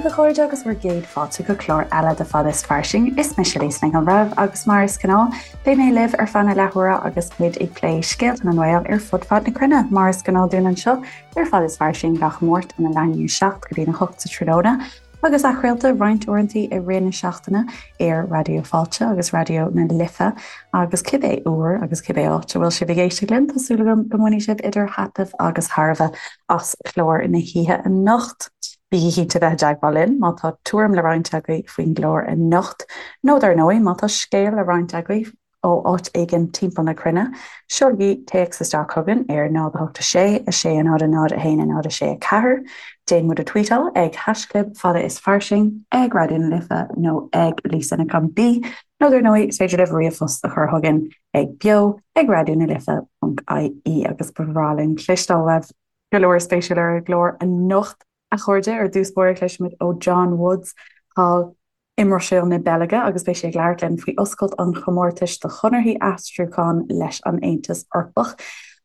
daoibh a chairde agus bhur gcéad fáilte go clár eile de Fada is Fairsing. Is mise Lisa Nic an Bhreithimh agus mar is gnáth, beidh mé libh ar feadh na leathuaire agus muid ag plé scéalta na nGael ar fud fad na cruinne, mar is gnáth dúinn anseo ar Fada is Fairsing gach Máirt óna leath i ndiaidh 7 go dtí a 8 sa tráthnóna. Agus athchraolta roinnt uaireanta i rith na seachtaine ar Raidió Fáilte agus Raidió na Life agus cibé uair agus cibé áit a bhfuil sibh ag éisteacht linn, tá súil agam go mbainfidh sibh idir thaitneamh agus thairbhe as clár na hoíche anocht. Bígí cinnte bheith i dteagmháil linn má tá tuairim le roinnt agaibh faoin gclár anocht, nó dar ndóigh má tá scéal le roinnt agaibh ó áit éigin timpeall na cruinne, seolaigí téacs isteach chugainn ar 0 8 6 6 0 0 1 0 6 4, déan muid a tweetáil ag haischlib fada is fairsing, ag Raidió na Life nó ag Lisa Nic an B, nó dar ndóigh is féidir libh ríomhphost a chur chugainn ag beo ag raidió na life ponc ie agus ba bhreá linn cloisteáil uaibh. Go leor spéisiúil ar an gclár anocht, a chairde, ar dtús báire cloisfimid ó John Woods thall i mBruiséil na Beilge agus beidh sé ag labhairt linn faoi oscailt an chomórtais do chonarthaí aistriúcháin leis an Aontas Eorpach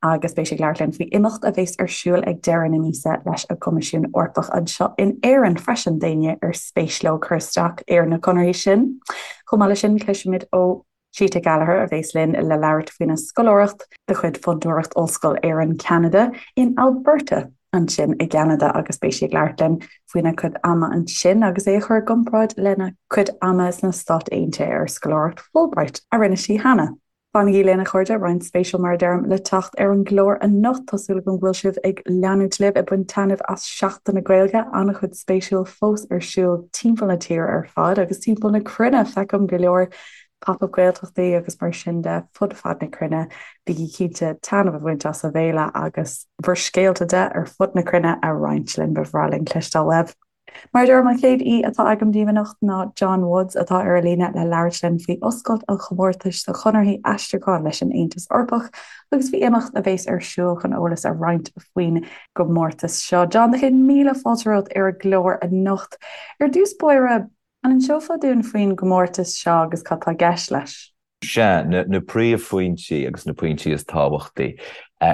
agus beidh sé ag labhairt linn faoi imeacht a bheas ar siúl ag deireadh na míosa leis an gCoimisiún Eorpach anseo in Éirinn freisin d'éinne ar spéis leo cur isteach ar na conarthaí sin. Chomh maith leis sin cloisfimid ó Zita Gallagher a bheas linn le labhairt faoina scoláireacht de chuid Fondúireacht Ollscoil Éireann Ceanada in Alberta ansin i gCeanada agus beidh sí ag labhairt linn faoina cuid ama ansin agus é a chur i gcomparáid lena cuid ama sna Stáit Aontaithe ar scoláireacht Fulbright a rinne sí cheana. Fanaigí linn a chairde, roinnt spéisiúil mar a deirim le teacht ar an gclár anocht. Tá súil agam go bhfuil sibh ag leanúint libh ag baint taitneamh as Seachtain na Gaeilge, an-chuid spéisiúil fós ar siúl timpeall na tíre ar fad agus timpeall na cruinne. Feicim go leor Pop-up Gaeltachtaí agus mar sin de fud fad na cruinne. Bígí cinnte taitneamh a bhaint as an bhféile agus bhur scéalta de ar fud na cruinne a roinnt linn. Ba bhreá linn cloisteáil uaibh. Mar a deirim, an chéad aoi atá agam daoibh anocht ná John Woods atá ar an líne le labhairt linn faoi oscailt an chomórtais do chonarthaí aistriúcháin leis an Aontas Eorpach agus faoi imeacht a bheas ar siúl chun eolas a roinnt faoin gcomórtas seo. John, do chéad míle fáilte romhat ar an gclár anocht. Ar dtús báire, an inseofá dúinn faoin gcomórtas seo agus cad tá i gceist leis? Sea, na príomhphointí agus na pointí is tábhachtaí.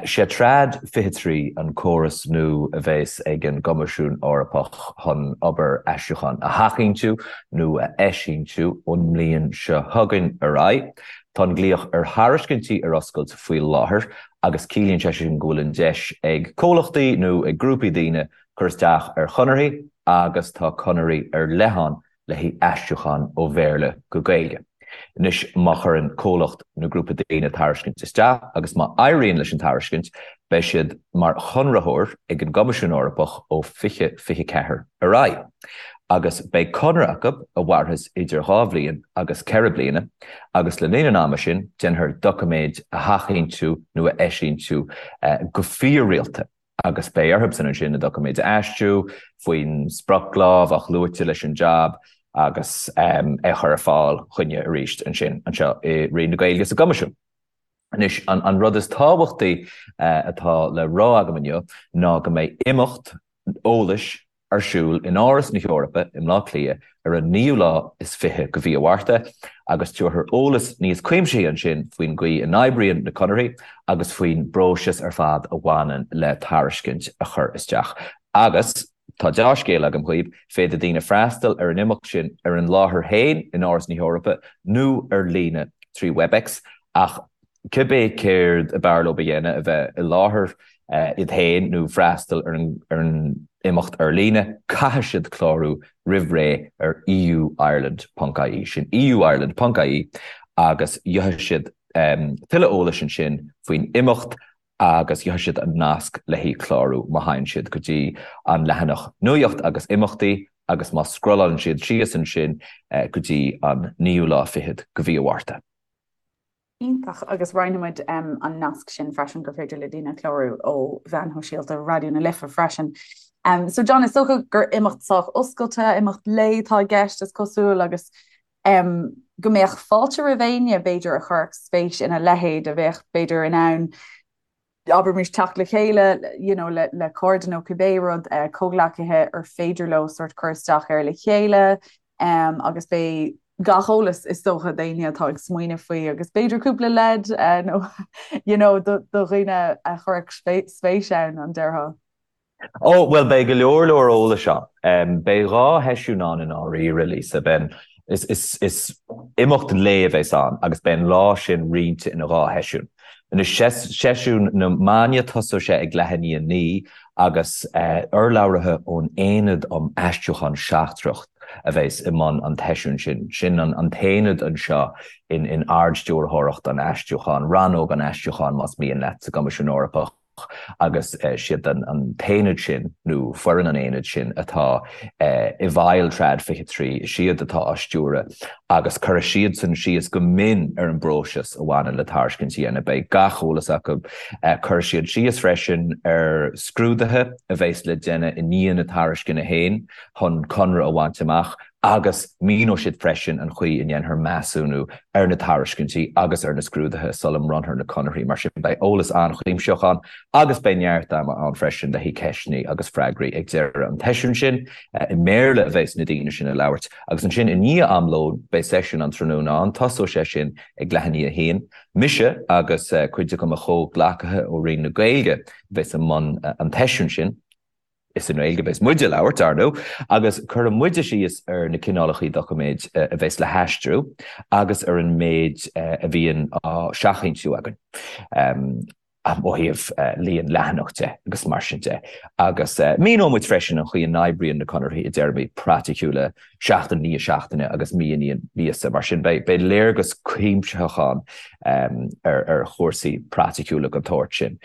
Sé Trad 23 an córas nua a bheas ag an gCoimisiún Eorpach chun obair aistriúcháin a sheachfhoinsiú nó a eisfhoinsiú ón mbliain seo chugainn ar aghaidh. Tá an glaoch ar thairiscintí ar oscailt faoi láthair agus ciallaíonn sé sin go bhfuil an deis ag comhlachtaí nó ag grúpaí daoine cur isteach ar chonarthaí agus tá conarthaí ar leith ann le haghaidh aistriúchán ó Bhéarla go Gaeilge. Anois, má chuireann comhlacht nó grúpa daoine tairiscint isteach agus má éiríonn leis an tairiscint, beidh siad mar chonraitheoir ag an gCoimisiún Eorpach ó 2024 ar aghaidh. Agus beidh conradh acu a mhairfeas idir dhá bhliain agus ceithre bliana, agus le linn an ama sin, déanfar doiciméid a sheachfhoinsiú nó a eisfhoinsiú go fíor-rialta. agus beidh orthubsan ansin na doiciméid a aistriú faoin sprioclá a bheadh luaite leis an jab agus é a chur ar fáil chugainne arís ansin anseo i Roinn na Gaeilge sa gCoimisiún. Anois, an rud is tábhachtaí atá le rá agam inniu ná go mbeidh imeacht eolais ar siúl in Áras na hEorpa i mBleá Cliath ar an naoú lá is fiche de mhí an Mhárta agus tabharfar eolas níos cuimsithí ansin faoin gcaoi a n-oibríonn na conarthaí agus faoin bpróiseas ar fad a bhaineann le tairiscint a chur isteach. Agus tá deá-scéala agam dhaoibh, féadfaidh daoine freastal ar an imeacht sin ar an láthair féin in Áras na hEorpa nó ar líne trí Webex ach cibé céard ab fhearr leo a dhéanamh, a bheith i láthair iad féin nó freastal ar an imeacht ar líne, caithfidh siad clárú roimh ré ar euireland.ie, sin euireland.ie, agus gheobhaidh siad tuilleadh eolais ansin faoin imeacht agus gheobhaidh siad an nasc le haghaidh clárú má théann siad go dtí an leathanach Nuacht agus Imeachtaí agus má scrollálann siad síos ansin go dtí an naoú lá fichead de mhí an Mhárta. Iontach, agus roinnfidh muid an nasc sin freisin gur féidir le daoine clárú ó mheáin shóisialta Raidió na Life freisin. So John, is dócha gur imeacht sách oscailte, imeacht lae atá i gceist is cosúil agus go mbeadh fáilte roimh éinne b'fhéidir a chuirfeadh spéis ina leithéid a bheadh b'fhéidir in ann abraimis teacht le chéile you know, le, le cairde nó cibé rud, uh, comhghleacaithe ar féidir leo sort cur isteach air le chéile um, agus beidh gach eolas is dócha d'éinne atá ag smaoineamh faoi agus b'fhéidir cúpla leid uh, nó you know, do, do dhaoine a chuirfeadh spéis ann an déarfá. Ó, bhuel, beidh go leor leor eolais ann. Beidh 2 sheisiún ann i ndáiríre, Lisa. Beidh an, is, is, is imeacht lae a bheas ann agus beidh an lá sin roinnte ina 2 sheisiún. Anois, seisiún na maidne, tosóidh sé ag leath i ndiaidh 9 agus urlabhraithe ón Aonad um Aistriúchán Seachtrach a bheas i mbun an tseisiúin sin. Sin an t-aonad anseo in Ard-Stiúrthóireacht an Aistriúcháin, Rannóg an Aistriúcháin más mian leat, sa gCoimisiún Eorpach. agus siad an t-aonad sin, nó foireann an aonaid sin, atá i bhfeighil Trad 23, is iad atá á stiúradh agus cuirfidh siadsan síos go mion ar an bpróiseas a bhaineann le tairiscint a dhéanamh. Beidh gach eolas acu. Cuirfidh siad síos freisin ar scrúduithe a bheas le déanamh i ndiaidh na tairisceana féin chun conradh a bhaint amach agus míneoidh siad freisin an chaoi a ndéanfar measúnú ar na tairiscintí agus ar na scrúduithe sula mbronnfar na conarthaí. Mar sin, beidh eolas an-chuimsitheach ann agus beidh neart ama ann freisin le haghaidh ceisteanna agus freagraí ag deireadh an tseisiúin sin. I mBéarla a bheas na daoine sin ag labhairt agus ansin i ndiaidh am lóin beidh seisiún an tráthnóna ann. Tosóidh sé sin ag leath i ndiaidh a haon. Mise agus cuid de mo chomhghleacaithe ó Roinn na Gaeilge a bheas i mbun an tseisiúin sin. Is i nGaeilge a bheas muid ag labhairt, ar ndóigh, agus cuirfidh muide síos ar na cineálacha doiciméid a bheas le haistriú agus ar an méid a bhíonn á seachfhoinsiú againn, ó thaobh líon leathanach de agus mar sin de. Agus míneoidh muid freisin an chaoi a n-oibríonn na conarthaí i dtéarmaí praiticiúla, seachtain i ndiaidh seachtaine agus mí i ndiaidh míosa. Mar sin, beidh léargas cuimsitheach ann ar chúrsaí praiticiúla den tsórt sin,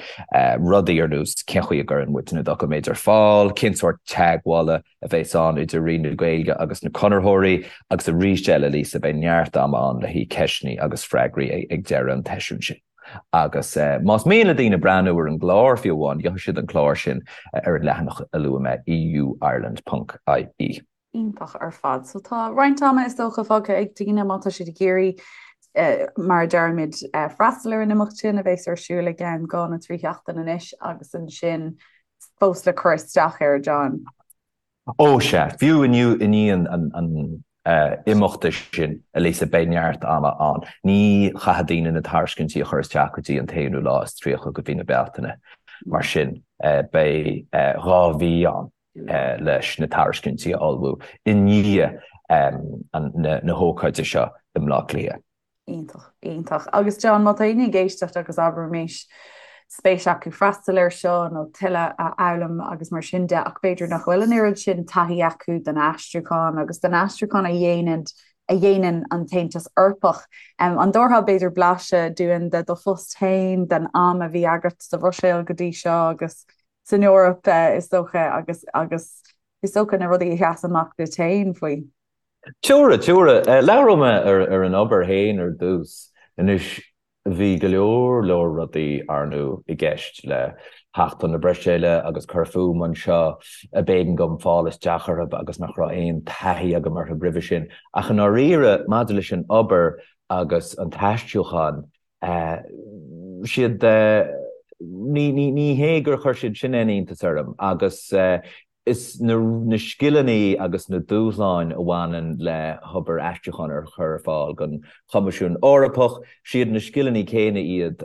rudaí ar nós cén chaoi a gcuireann muid na doiciméid ar fáil, cén sórt teagmhála a bheas ann idir Roinn na Gaeilge agus na conraitheoirí, agus arís eile, Lisa, beidh neart ama ann le haghaidh ceisteanna agus freagraí ag deireadh an tseisiúin sin. Agus más mian le daoine breathnú ar an gclár, fiú amháin, gheobhaidh siad an clár sin ar an leathanach a luaigh mé, euireland.ie. Iontach ar fad. So tá roinnt ama is dócha fágtha ag daoine má tá siad ag iarraidh, mar a deirimid, freastal ar an imeacht sin a bheas ar siúl i gceann 2 nó 3 sheachtain anois agus ansin fós le cur isteach air, John. Ó sea, fiú inniu i ndiaidh an imeachta sin, a Lisa, beidh neart ama ann. Ní chaithfidh daoine na tairiscintí a chur isteach go dtí an t-aonú lá is 30 de mhí na Bealtaine. Mar sin, beidh 2 mhí ann. leis na tairiscintí a ullmhú i ndiaidh na hócáide seo i mBleá Cliath. Iontach, iontach. Agus John, má tá éinne ag éisteacht agus abraimis spéis acu freastal air seo nó tuilleadh a fhoghlaim agus mar sin de ach b'fhéidir nach bhfuil an oiread sin taithí acu den aistriúchán agus den aistriúchán a dhéanann a dhéanann an tAontas Eorpach. An dtabharfá b'fhéidir blaiseadh dúinn de do phost féin, den am a bhí agat sa Bhruiséil go dtí seo agus san Eoraip, is dócha, agus agus is dócha na rudaí a sheas amach duit féin faoi. Tabharfaidh, tabharfaidh. Labhróidh mé ar an obair féin ar dtús. Anois, bhí go leor leor rudaí, ar ndóigh, i gceist le theacht chun na Bruiséile agus cur fúm anseo a b'éigean dom fáil isteach orthu agus nach raibh aon taithí agam orthu roimhe sin. Ach i ndáiríre, maidir leis an obair agus an t-aistriúchán, siad, ní hé gur chuir siad sin aon iontas orm agus is na scileanna agus na dúshláin a bhaineann le hobair aistriúcháin a chur ar fáil don Choimisiún Eorpach, siad na scileanna céanna iad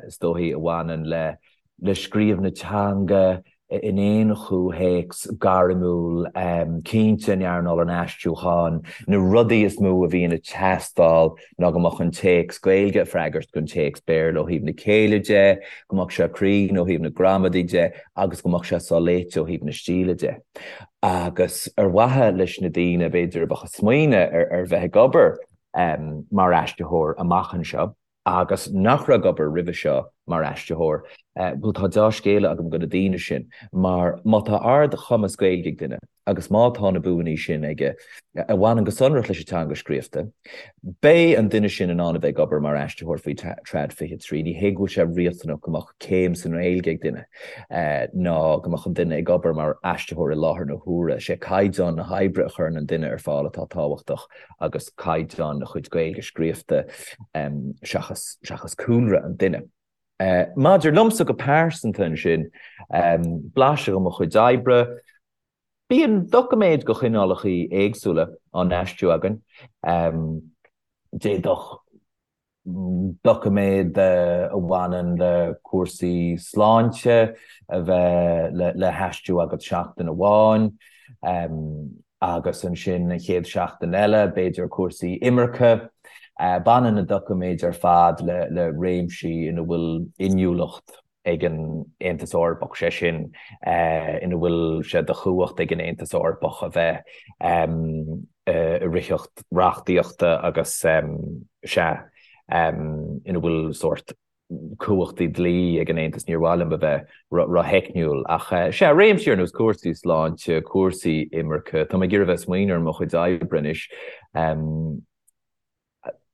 is dóichí a bhaineann le le scríobh na teanga in aon chomhthéacs gairmiúil, cinnte in earnáil an aistriúcháin, na rudaí is mó a bhíonn ag teastáil ná go mbeadh an téacs Gaeilge ag freagairt don téacs Béarla ó thaobh na céille de, go mbeadh sé cruinn ó thaobh na gramadaí de agus go mbeadh sé soléite ó thaobh na stíle de. Agus ar mhaithe leis na daoine, b'fhéidir, a bheadh ag smaoineamh ar bheith ag obair mar aistritheoir amach anseo, agus nach raibh ag obair roimhe seo mar aistritheoir, bhuel tá deá-scéala agam do na daoine sin, mar má tá ard-chumas Gaeilge ag duine agus má tá na buanna sin aige a bhaineann go sonrach leis an teanga scríofa, beidh an duine sin in ann a bheith ag obair mar aistritheoir faoi Trad 23. Ní hé go bhfuil sé riachtanach go mbeadh céim sa nGaeilge ag duine, ná go mbeadh an duine ag obair mar aistritheoir i láthair na huaire. Is é caighdeán na hoibre a chuireann an duine ar fáil atá tábhachtach. agus caighdeán a chuid Gaeilge scríofa seachas seachas cúlra an duine. Maidir liomsa go pearsanta ansin, blaiseadh de mo chuid oibre, bíonn doiciméid de chineálacha éagsúla á n-aistriú againn. D'fhéadfadh. Doiciméad a bhaineann le cúrsaí sláinte a bheith le haistriú agat seachtain amháin agus ansin an chéad seachtain eile, b'fhéidir cúrsaí imirce. Baineann na doiciméid ar fad le réimsí ina bhfuil inniúlacht ag an Aontas Eorpach, sé sin, ina bhfuil sé de chumhacht ag an Aontas Eorpach a bheith i ritheacht reachtaíochta agus, sea, ina bhfuil sórt cumhachtaí dlí ag an Aontas, níor mhaith liom a bheith rótheicniúil, ach, sea, réimsí ar nós cúrsaí sláinte, cúrsaí imirce, tá mé ag iarraidh a bheith ag smaoineamh ar mo chuid oibre anois.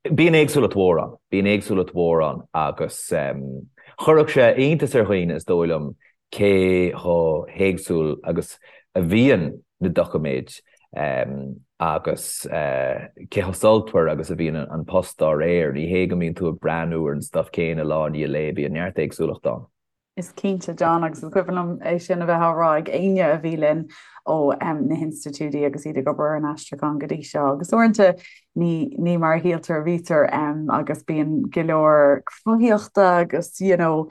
Bíonn éagsúlacht mhór ann, bíonn éagsúlacht mhór ann agus chuirfeadh sé iontas ar dhaoine, is dóigh liom, cé chomh héagsúil agus a bhíonn na doiciméid agus cé chomh sultmhar agus a bhíonn an post dá réir. Ní hé go mbíonn tú ag breathnú ar an stuif céanna lá i ndiaidh lae, bíonn neart éagsúlacht ann. Is cinnte, John, agus is cuimhin liom é sin a bheith á rá ag éinne a bhí linn ó na hinstitiúidí agus iad ag obair ar an aistriúchán go dtí seo. Agus uaireanta ní, ní mar a shíltear a bhítear agus bíonn go leor cruthaíochta agus you know,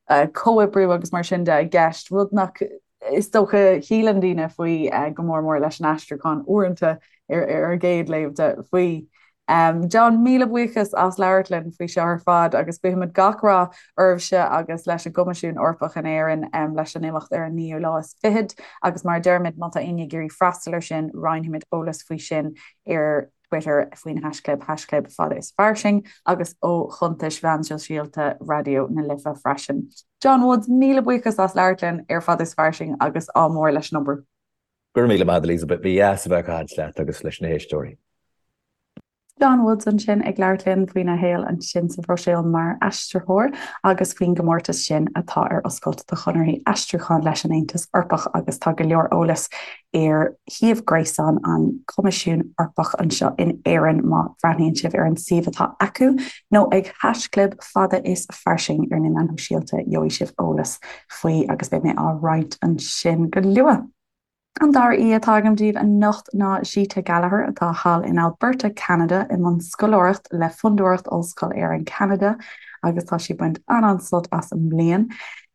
comhoibriú agus mar sin de i gceist, rud nach is dócha shíleann daoine faoi go mór mór leis an aistriúchán uaireanta ar an gcéad léamh de faoi. John, míle buíochas as labhairt linn faoi seo ar fad agus guímid gach rath oraibhse agus leis an gCoimisiún Eorpach in Éirinn leis an imeacht ar an naoú lá is fichead agus mar a deirimid má tá éinne ag iarraidh freastal ar sin roinnfimid eolas faoi sin ar Twitter faoin haischlib haischlib fada is fairsing agus ó chuntais mheán sóisialta Raidió na Life freisin. John Woods, míle buíochas as labhairt linn ar Fada is Fairsing agus ádh mór leis an obair. Go raibh míle maith agat Elizabeth, ba dheas a bheith ag caint leat agus leis na héisteoirí. John Woods ansin ag labhairt linn faoina shaol ansin sa Bhruiséil mar aistritheoir agus faoin gcomórtas sin atá ar oscailt do chonarthaí aistriúcháin leis an Aontas Eorpach agus tá go leor eolais ar shuíomh gréasáin an Choimisiún Eorpach anseo in Éirinn má bhreathnaíonn sibh ar an suíomh atá acu nó ag haischlib fada is fairsing ar na meáin shóisialta gheobhaidh sibh eolas faoi agus beidh mé á roinnt ansin go luath. An dara aoi atá agam daoibh anocht ná Zita Gallagher atá thall in Alberta, Ceanada i mbun scoláireacht le Fondúireacht Ollscoil Éireann Ceanada agus tá sí ag baint an-an-sult as an mbliain.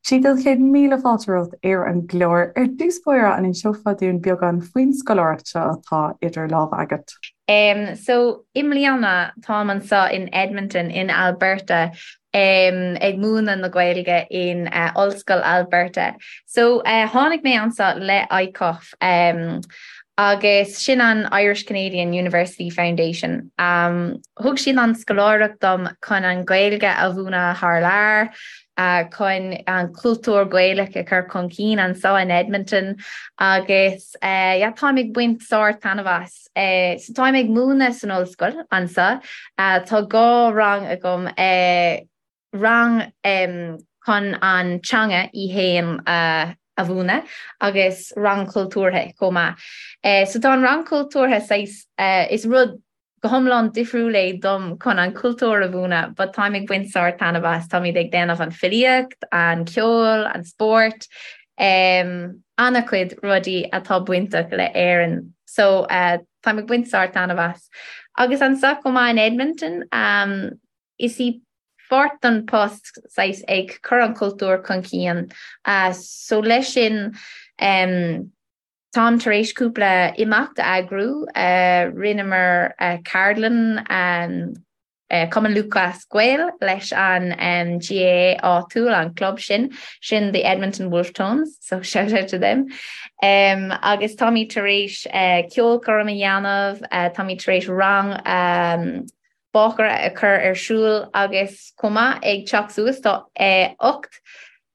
Zita, 100,000 fáilte romhat ar an gclár. Ar dtús báire, an inseofá dúinn beagán faoin scoláireacht seo atá idir lámha agat? So, i mbliana, táim anseo in Edmonton, in Alberta, ag múineadh na Gaeilge in Ollscoil Alberta. So, tháinig mé anseo le ICUF, agus sin an Irish Canadian University Foundation. Thug siad an scoláireacht dom chun an Ghaeilge a mhúineadh thar lear, chun an cultúr Gaelach a chur chun cinn anseo in Edmonton agus yeah táim ag baint sár-taitneamh as. So táim ag múineadh san ollscoil anseo. Tá dhá rang agam, rang chun an teanga í fhéin a mhúineadh agus rang cultúrtha chomh maith. So tá an rang cultúrtha saghas, is rud go hiomlán difriúil é dom chun an cultúr a mhúineadh but táim ag baint sár-taitneamh as. Táimid ag déanamh an filíocht, an ceol, an spórt, an-chuid rudaí atá bainteach le Éirinn. So táim ag baint sár-taitneamh as. Agus anseo chomh maith in Edmonton, is í pháirt den post saghas ag cur an cultúr chun cinn. So leis sin táim tar éis cúpla imeacht a eagrú. Rinneamar ceardlann Cumann Lúthchleas Gael leis an GAA áitiúil, an club sin, sin the Edmonton Wolfe Tones, so shout out to them. Agus táimid tar éis ceolchoirm a dhéanamh, táimid tar éis rang bácaire a chur ar siúl agus chomh maith ag teacht suas tá 8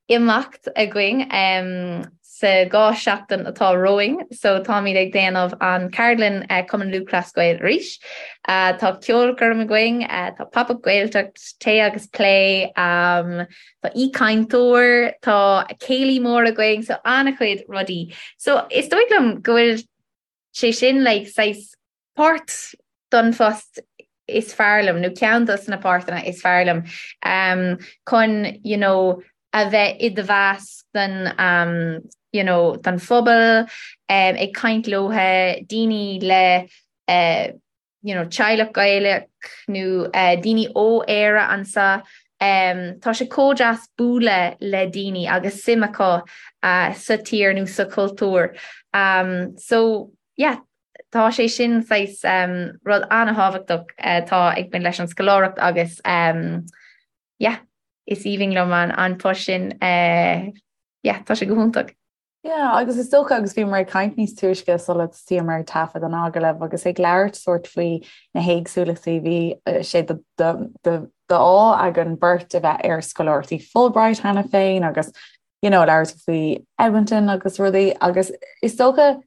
imeacht againn sa 2 seachtain atá romhainn so táimid ag déanamh an ceardlann Cumann Lúthchleas Gael arís. Tá ceolchoirm againn, tá Pop-up Gaeltacht, tae agus plé, tá aoichainteoir, tá céilí mór againn so an-chuid rudaí. So is dóigh liom go bhfuil sé sin like saghas Páirt don phost is fearr liom, nó ceann dos na páirteanna is fearr liom, chun you know a bheith i do mheasc den um you know den phobal, ag caint leotha, daoine le eh. You know, teaghlach Gaelach nó daoine ó Éire anseo, tá sé chomh deas bualadh le daoine agus suim acu sa tír nó sa chultúr. So, yeah, tá sé sin saghas rud an-thábhachtach atá ag baint leis an scoláireacht agus yeah, is aoibhinn liom an post sin, yeah, tá sé go hiontach. Yeah, agus is dócha, agus bhíomar ag caint níos túisce sula dtosaíomar ag taifead an agallaimh agus ag labhairt sórt faoi na héagsúlachtaí, bhí sé d'ádh againn beirt a bheith ar scoláireachtaí Fulbright cheana féin agus you know, labhairt faoi Edmonton agus rudaí agus is dócha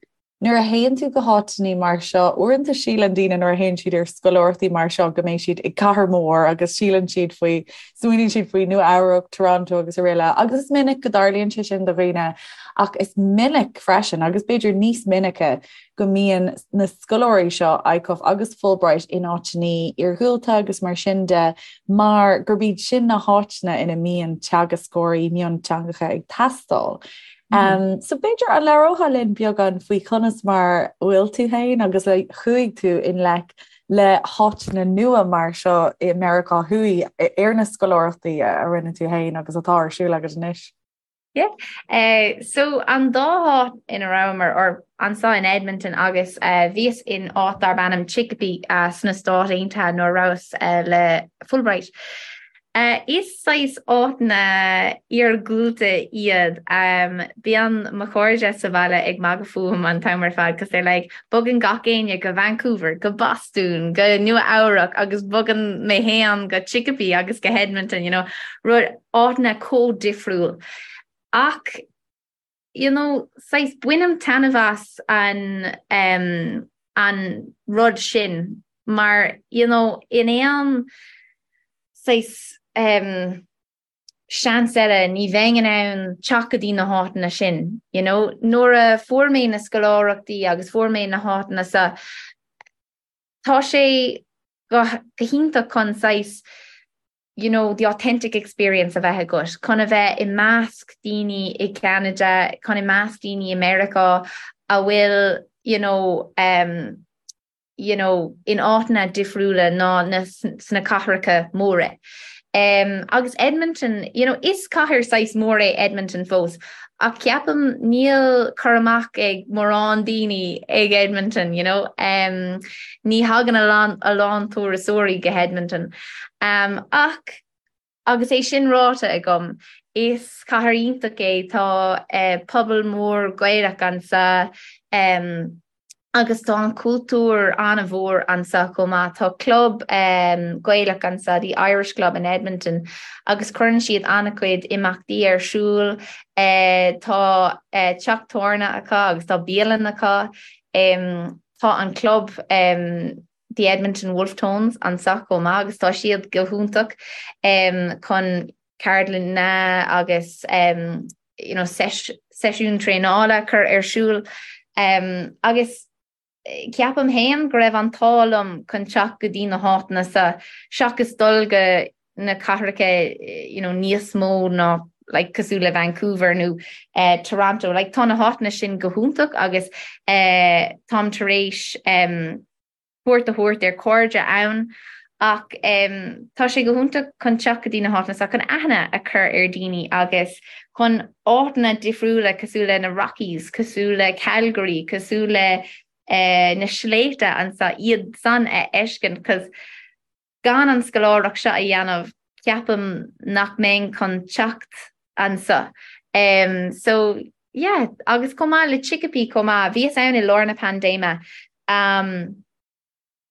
Nuair a théann tú go háiteanna mar seo, uaireanta síleann daoine nuair a théann siad ar scoláireachtaí mar seo go mbeidh siad i gcathair mhór agus síleann siad faoi, smaoiníonn siad faoi Nua Eabhrac, Toronto agus araile agus is minic go dtarlaíonn sé sin do dhaoine ach is minic freisin agus b'fhéidir níos minice go mbíonn na scoláirí seo, ICUF agus Fulbright, in áiteanna iargúlta agus mar sin de mar gurb iad sin na háiteanna ina mbíonn teagascóirí mionteangacha ag teastáil. Um, so b'fhéidir an labhrófá linn beagán faoi conas mar bhfuil tú féin agus a chuaigh tú i ngleic le háiteanna nua mar seo i Meiriceá Thuaidh ar na scoláireachtaí a rinne tú féin agus atá ar siúl agat anois. Yeah. Uh, so an dá háit ina rabhamar or anseo in Edmonton agus uh, bhíos in áit darb ainm Chicopee uh, sna Stáit Aontaithe nuair a rabhas uh, le Fulbright. Is saghas áiteanna iargúlta iad. Bíonn mo chairde sa bhaile ag magadh fúm an t-am ar fad 'cause they're like, bogann gach éinne go Vancouver, go Bostún, go Nua Eabhrac agus bogann mé fhéin go Chicopee agus go hEdmonton, you know, rud, áiteanna chomh difriúil. Ach, you know, saghas bainim taitneamh as an, an rud sin mar, you know, in aon saghas seans eile ní bheinn in ann teacht go dtí na háiteanna sin, you know. Nuair a fuair mé na scoláireachtaí agus fuair mé na háiteanna seo, tá sé go hiontach chun saghas, you know, the authentic experience a bheith agat, chun a bheith i measc daoine i gCeanada, chun i measc daoine i Meiriceá a bhfuil, you know, um, you know, in áiteanna difriúla ná na sna cathracha móra. Um, agus Edmonton, you know, is cathair saghas mór é Edmonton fós, ach ceapaim níl cur amach ag mórán daoine ag Edmonton, you know, um, ní thagann a lán, a lán turasóirí go hEdmonton. Um, ach agus é sin ráite agam, is cathair iontach é, tá uh, pobal mór Gaelach anseo, um, agus tá an cultúr an-mhór anseo chomh maith. Tá club Gaelach anseo, the Irish Club in Edmonton, agus cuireann siad an-chuid imeachtaí ar siúl. Tá teach tábhairne acu agus tá bialann acu. Tá an club The Edmonton Wolfe Tones anseo chomh maith agus tá siad go hiontach chun ceardlanna agus you know, seisiún traenála a chur ar siúl agus ceapaim féin go raibh an t-ádh liom chun teacht go dtí na háiteanna seo seachas dul go na cathracha you know, níos mó ná like, cosúil le Vancouver nó uh, Toronto. Like, tá na háiteanna sin go hiontach agus uh, táim tar éis um, cuairt a thabhairt ar chairde ann ach tá sé go hiontach chun teacht go dtí na háiteanna seo chun aithne a chur ar daoine agus chun áiteanna difriúla cosúil le na Rockies, cosúil le Calgary, cosúil le na sléibhte anseo, iad san a fheiscint 'cause gan an scoláireacht seo a dhéanamh ceapaim nach mbeinn chun teacht anseo. So yeah, agus chomh maith le Chicopee chomh maith, bhíos ann i lár na paindéime. Um,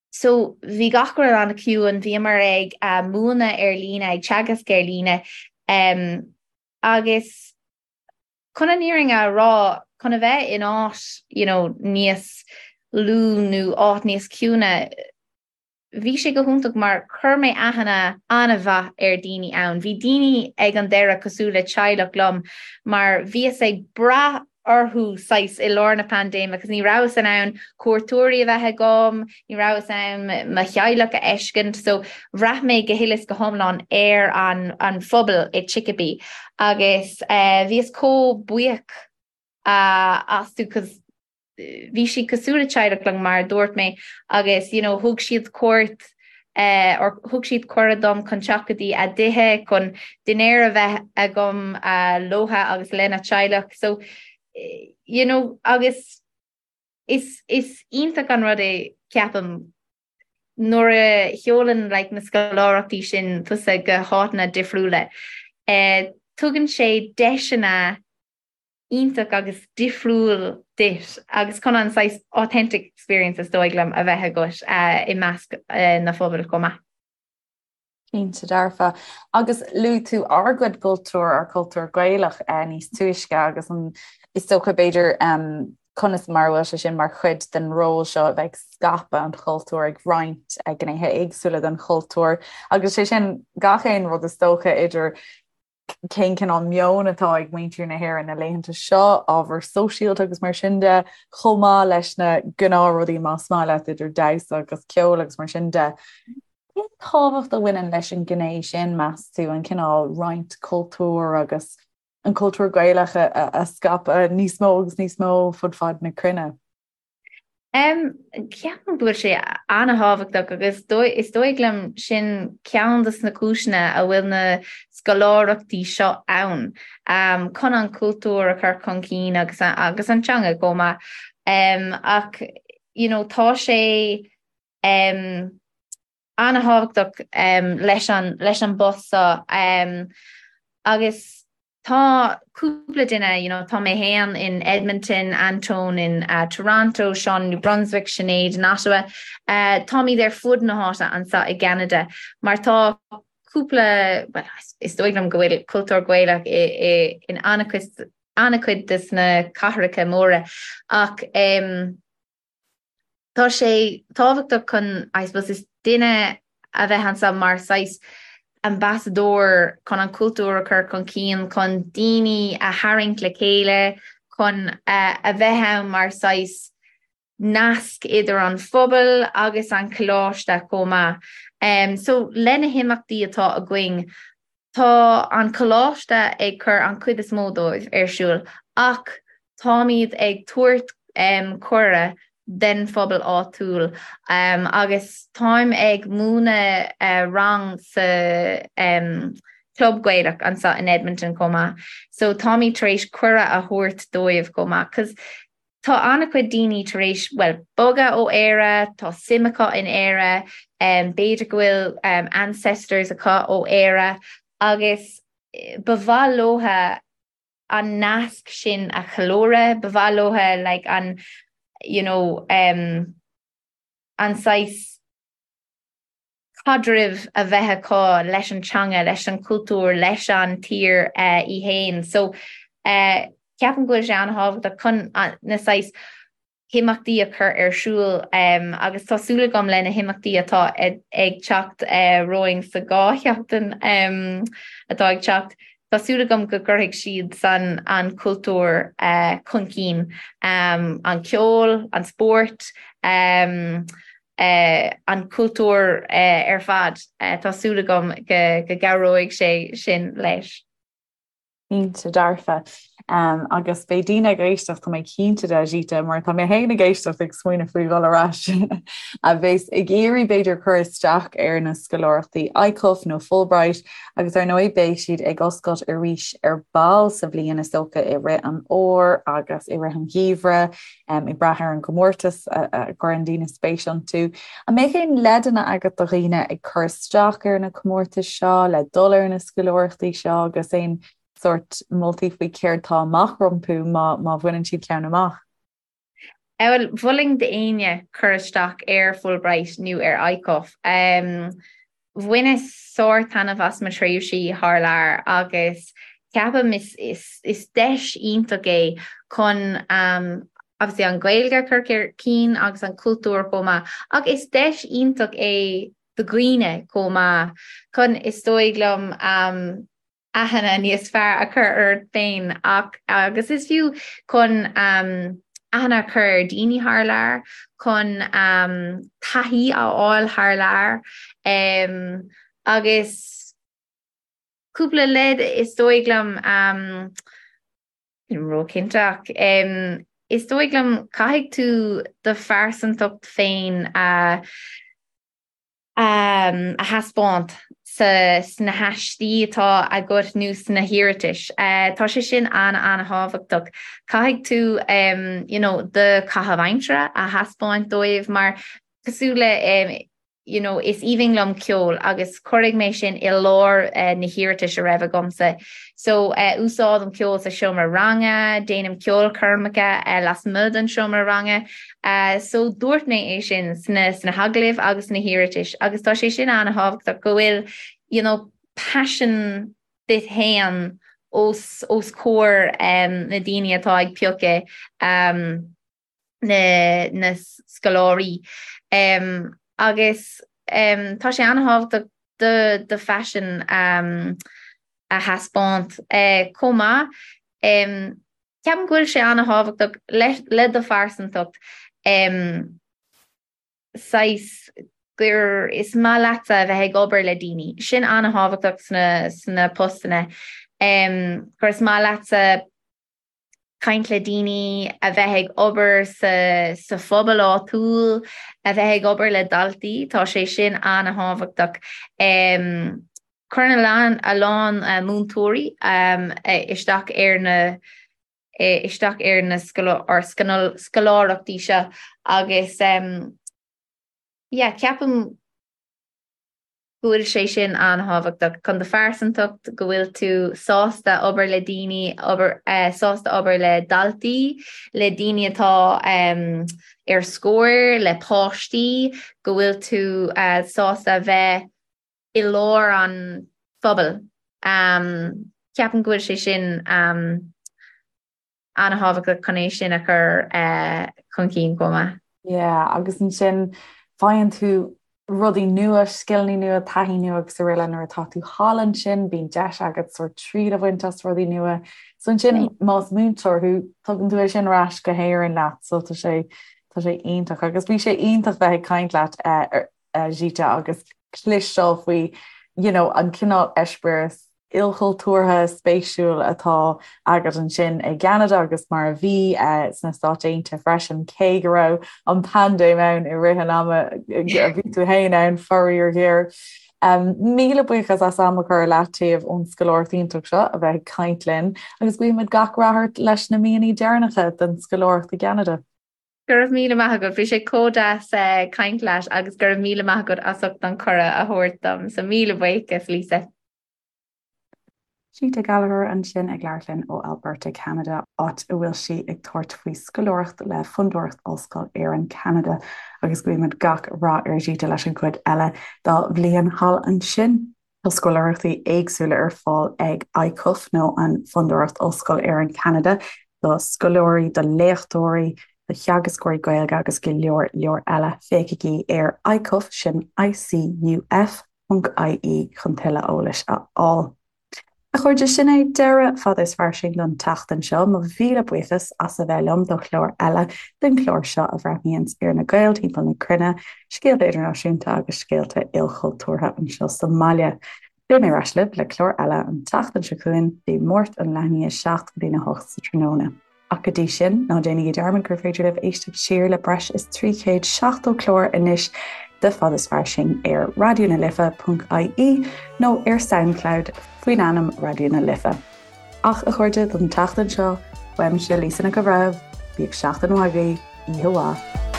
so bhí gach rud an-chiúin, bhíomar ag uh, múineadh ar líne, ag teagasc ar líne, um, agus chun an fhírinne a rá, chun a bheith in áit, you know, níos lú nó áit níos ciúine, Bhí sé go hiontach mar chuir mé aithne an-mhaith ar daoine ann. Bhí daoine ag an deireadh cosúil le teaghlach liom mar bhíos ag brath orthu saghas i lár na paindéime agus ní rabhas in ann cuairteoirí a bheith agam, ní rabhas in ann mo theaghlach a fheiscint so bhraith mé go huile is go hiomlán ar an an phobal i Chicopee agus bhíos chomh buíoch astu 'cause. bhí siad cosúil le teaghlach liom mar a dúirt mé agus you know thug siad cuairt eh, or thug siad cuireadh dom chun teacht go dtí a dtithe chun dinnéar a bheith agam uh, leotha agus lena teaghlach so you know agus is is iontach an rud é ceapaim nuair a sheolann like na scoláireachtaí sin tusa go háiteanna difriúla eh, tugann sé deiseanna iontach agus difriúil duit agus chun an saghas authentic experience is dóigh liom a bheith agat i measc na phobail chomh maith. Cinnte dearfa. Agus luaigh tú ár gcuid cultúr, ár cultúr Gaelach níos túisce agus an is dócha b'fhéidir conas mar a bhfuil sé sin mar chuid den ról seo a bheith ag scaipeadh an chultúir, ag roinnt gnéithe éagsúla den chultúr agus sé sin gach aon rud is dócha idir cén cineál meoin atá ag muintir na hÉireann na laethanta seo, ábhar sóisialta agus mar sin de, chomh maith leis na gnáthrudaí más maith leat idir damhsa agus ceol agus mar sin de. Cén tábhacht a bhaineann leis an ghné sin, meas tú, an cineál roinnt cultúir agus an cultúr Gaelach a scaipeadh níos mó agus níos mó fud fad na cruinne? Ceapaim go bhfuil sé an-thábhachtach agus is dóigh liom sin ceann de na cúiseanna a bhfuil na scoláireachtaí seo ann, chun an cultúr a chur chun cinn agus agus an teanga chomh maith. Ach you know tá sé an-thábhachtach leis an leis an bpost seo agus Tá cúpla duine, you know, tá mé féin in Edmonton, Anton in uh, Toronto, Sean New Brunswick, Sinéad in Ottawa. Uh, táimid ar fud na háite anseo i gCeanada, mar tá cúpla, well, is dóigh liom go bhfuil cultúr Gaelach i, i, in an-chuid des na cathracha móra ach um, Tá sé tábhachtach chun, I suppose, is duine a bheith anseo mar saghas ambasadóir chun an cultúr a chur chun cinn, chun daoine a tharraingt le chéile, chun a bheith ann mar saghas nasc idir an phobal agus an coláiste chomh maith. So le na himeachtaí atá againn, Tá an coláiste ag cur an chuid is mó dóibh ar siúl ach táimid ag tabhairt cuireadh den phobal áitiúil agus táim ag múineadh rang sa Club Gaelach anseo in Edmonton chomh maith so táimid tar éis cuireadh a thabhairt dóibh chomh maith 'cause Tá an-chuid daoine tar éis, bhuel, bogadh ó Éire, tá suim acu in Éire, b'fhéidir go bhfuil ancestors acu ó Éire agus ba mhaith leotha an nasc sin a cheiliúradh, ba mhaith leotha like an, you know, an saghas caidreamh a bheith acu leis an teanga, leis an chultúr, leis an tír í fhéin. So ceapaim go bhfuil sé an-thábhachtach chun na saghas himeachtaí a chur ar siúl agus tá súil agam le na himeachtaí atá ag teacht romhainn sa dá sheachtain atá ag teacht, tá súil agam go gcuirfidh siad san an cultúr chun cinn, an ceol, an spórt, an cultúr ar fad. Tá súil agam go gcabhróidh sé sin leis. Cinnte dearfa. Agus beidh daoine ag éisteacht, tá mé cinnte de, Zita, mar tá mé féin ag éisteacht ag smaoineamh faoi dhul ar ais, a bheas ag iarraidh b'fhéidir cur isteach ar na scoláireachtaí ICUF nó Fulbright agus ar ndóigh beidh siad ag oscailt arís ar ball sa bhliain is dócha i rith an fhómhair agus i rith an gheimhridh. ag brath ar an gcomórtas a gcuireann daoine spéis iontu. An mbeadh aon leideanna agat do dhaoine ag cur isteach ar na comórtais seo, le dul ar na scoláireachtaí seo agus aon sórt moltaí faoi céard tá amach rompu má má bhaineann siad ceann amach? Bhuel, mholfainn d'éinne cur isteach ar Fulbright nó ar ICUF. Bhaineas sár-taitneamh as mo thréimhsí thar lear agus ceapaim is is is deis iontach é chun obviously an Ghaeilge a chur chun cinn agus an cultúr chomh maith ach is deis iontach é do dhaoine chomh maith chun is dóigh liom aithne níos fearr a chur ort féin ach agus is fiú chun aithne a chur ar daoine thar lear, chun taithí a fháil thar lear agus cúpla leid is dóigh liom. Nílim róchinnte ach. Is dóigh liom caithfidh tú do phearsantacht féin a a thaispeáint sa sna haistí atá agat nó sna hiarratais. Tá sé sin an-an-thábhachtach. Caithfidh tú you know do chaitheamh aimsire a thaispeáint dóibh mar cosúil le you know, is aoibhinn liom ceol agus cuirfidh mé sin i lár na hiarratais a raibh agamsa. So úsáidim ceol sa seomra ranga, déanaim ceolchoirmeacha lasmuigh den seomra ranga. So dúirt mé é sin sna sna hagallaimh agus sna hiarratais agus tá sé sin an-thábhachtach go bhfuil you know, paisean duit féin os os comhair na daoine atá ag piocadh um, na na scoláirí agus tá sé an-thábhachtach do do phaisean a thaispeáint chomh maith. Ceapaim go bhfuil sé an-thábhachtach le do phearsantacht saghas gur is maith leatsa a bheith ag obair le daoine. Sin an-thábhachtach sna sna postanna. Gur is maith leatsa caint le daoine, a bheith ag obair sa sa phobal áitiúil, a bheith ag obair le daltaí, tá sé sin an-thábhachtach. Cuireann a lán a lán múinteoirí isteach ar na isteach ar na scoláireachtaí seo agus yeah ceapaim go bhfuil sé sin an-thábhachtach chun do phearsantacht, go bhfuil tú sásta obair le daoine, obair, sásta obair le daltaí, le daoine atá ar scor, le páistí, go bhfuil tú sásta a bheith i lár an phobail. Ceapaim go bhfuil sé sin an-thábhachtach chun é sin a chur chun cinn chomh maith. Yeah, agus ansin faigheann tú rudaí nua, scileanna nua, taithí nua agus araile nuair atá tú thall ansin, bíonn deis agat sórt triail a bhaint as rudaí nua. So ansin más múinteoir thú, tugann tú é sin ar ais go hÉirinn leat, so tá sé tá sé iontach agus bhí sé iontach bheith ag caint leat Zita agus cloisteáil faoi you know an cineál eispéireas ilchultúrtha spéisiúil atá agat ansin i gCeanada agus mar a bhí sna Stáit Aontaithe freisin, cé go raibh an paindéim ann i rith an ama a bhí tú féin ann, faraor géar. Míle buíochas as am a chur ar leataobh ón scoláireacht iontach seo a bheith ag caint linn agus guímid gach rath ort leis na míonna deireanacha den scoláireacht i gCeanada. Go raibh míle maith agat, bhí sé chomh deas caint leat agus go raibh míle maith agat as ucht an cuireadh a thabhairt dom, so míle buíochas Lisa. Zita Gallagher ansin ag labhairt linn ó Alberta, Ceanada, áit a bhfuil sí ag tabhairt faoi scoláireacht le Fondúireacht Ollscoil Éireann, Ceanada, agus guímid gach rath ar Zita leis an gcuid eile dá bhliain thall ansin. Tá scoláireachtaí éagsúla ar fáil ag ICUF nó an Fondúireacht Ollscoil Éireann, Ceanada, do scoláirí, do léachtóirí, do theagascóirí Gaeilge agus go leor leor eile. Féachaigí ar ICUF, sin ICUF, .ie chun tuilleadh eolais a fháil. A chairde, sin é deireadh Fada is Fairsing don tseachtain seo. Mo mhíle buíochas as a bheith liom do chlár eile den chlár seo a bhreathnaíonns ar na Gaeil timpeall na cruinne, scéalta idirnáisiúnta agus scéalta ilchultúrtha anseo sa mbaile. Beidh mé ar ais libh le clár eile an tseachtain seo chugainn, Dé Máirt ón leath i ndiaidh 7 go dtína 8 sa tráthnóna. Ach go dtí sin, ná déanaigí dearmad gur féidir libh éisteacht siar le breis is 370 clár anois de Fada is Fairsing ar Raidió na Life ponc ie nó ar Soundcloud faoin ainm Raidió na Life. Ach, a chairde, don tseachtain seo, uaimse Lisa Nic an Bhreithimh, bíodh seachtain mhaith agaibh, oíche mhaith.